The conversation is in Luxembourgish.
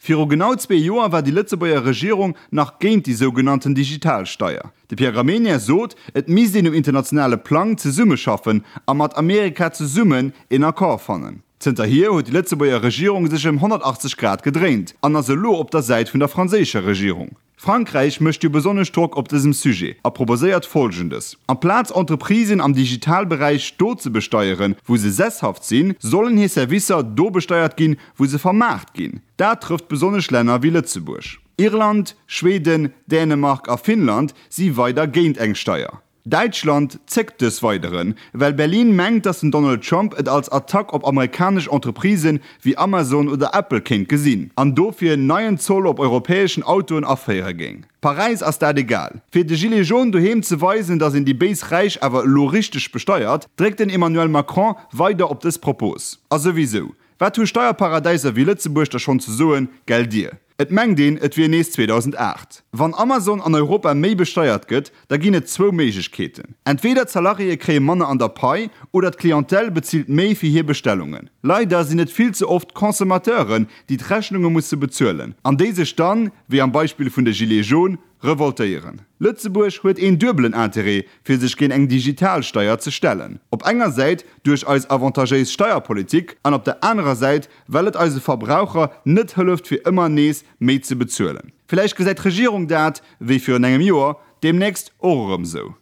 Viru genau zwee Joer war déi Lëtzebuerger Regierung nach géint déi sougenannten Digitalsteier. De Pierre Gramegna sot, et misst een um internationale Plang zesummeschaffen a mat Amerika zesummen een Accord fannen. Zënterhier huet déi Lëtzebuerger Regierung sech ëm 180 Grad gedréint an ass elo op der Säit vun der franséischer Regierung. Frankräich mécht jo besonnesch Drock op dësem Sujet a proposéiert Folgendes, Amplaz Entreprisen am Digitalberäich do ze besteieren, wou se sesshaft sinn, sollen hir Servicer do besteiert ginn, wou se vermaart ginn. Dat trëfft besonnesch Länner wéi Lëtzebuerg. Irland, Schweden, Dänemark a Finnland si weider géint eng Steier. Däitschland zéckt dës Weideren, well Berlin mengt, datt den Donald Trump et als Attack op amerikanesch Entreprisen wéi Amazon oder Apple kéint gesinn an dofir neien Zoll op europäeschen Autoen aféiere géing. Paräis ass dat egal. Fir de Gilets jaunes doheem ze weisen, datt een déi béis Räich awer elo richteg besteiert, dréckt den Emmanuel Macron weider op dës Propos. A souwisou, wat hu Steierparadäiser wéi Lëtzebuerg da schonn ze soen, gelldir? Et mengt een, et wier nees 2008. Wann Amazon an Europa méi besteiert gëtt, da ginn et zwou Méiglechkeeten, Entweder d'Salariéë kréie manner an der Pai oder d'Clientèle bezilt méi fir hir Bestellungen. Leider sinn et vill ze oft d'Consommateuren, déi d'Rechnunge musse bezuelen an déi sech dann, wéi am Beispill vun de Gilets jaunes, revoltéieren. Lëtzebuerg huet een duebelen Interêt, fir sech géint eng Digitalsteier ze stellen, op enger Säit duerch eis avantagéis Steierpolitik an op der anerer Säit, well et eise Verbraucher net hëlleft fir ëmmer nees méi ze bezuelen. Villäicht gesäit d'Regierung dat, wéi virun engem Joer, deemnächst och erëm sou.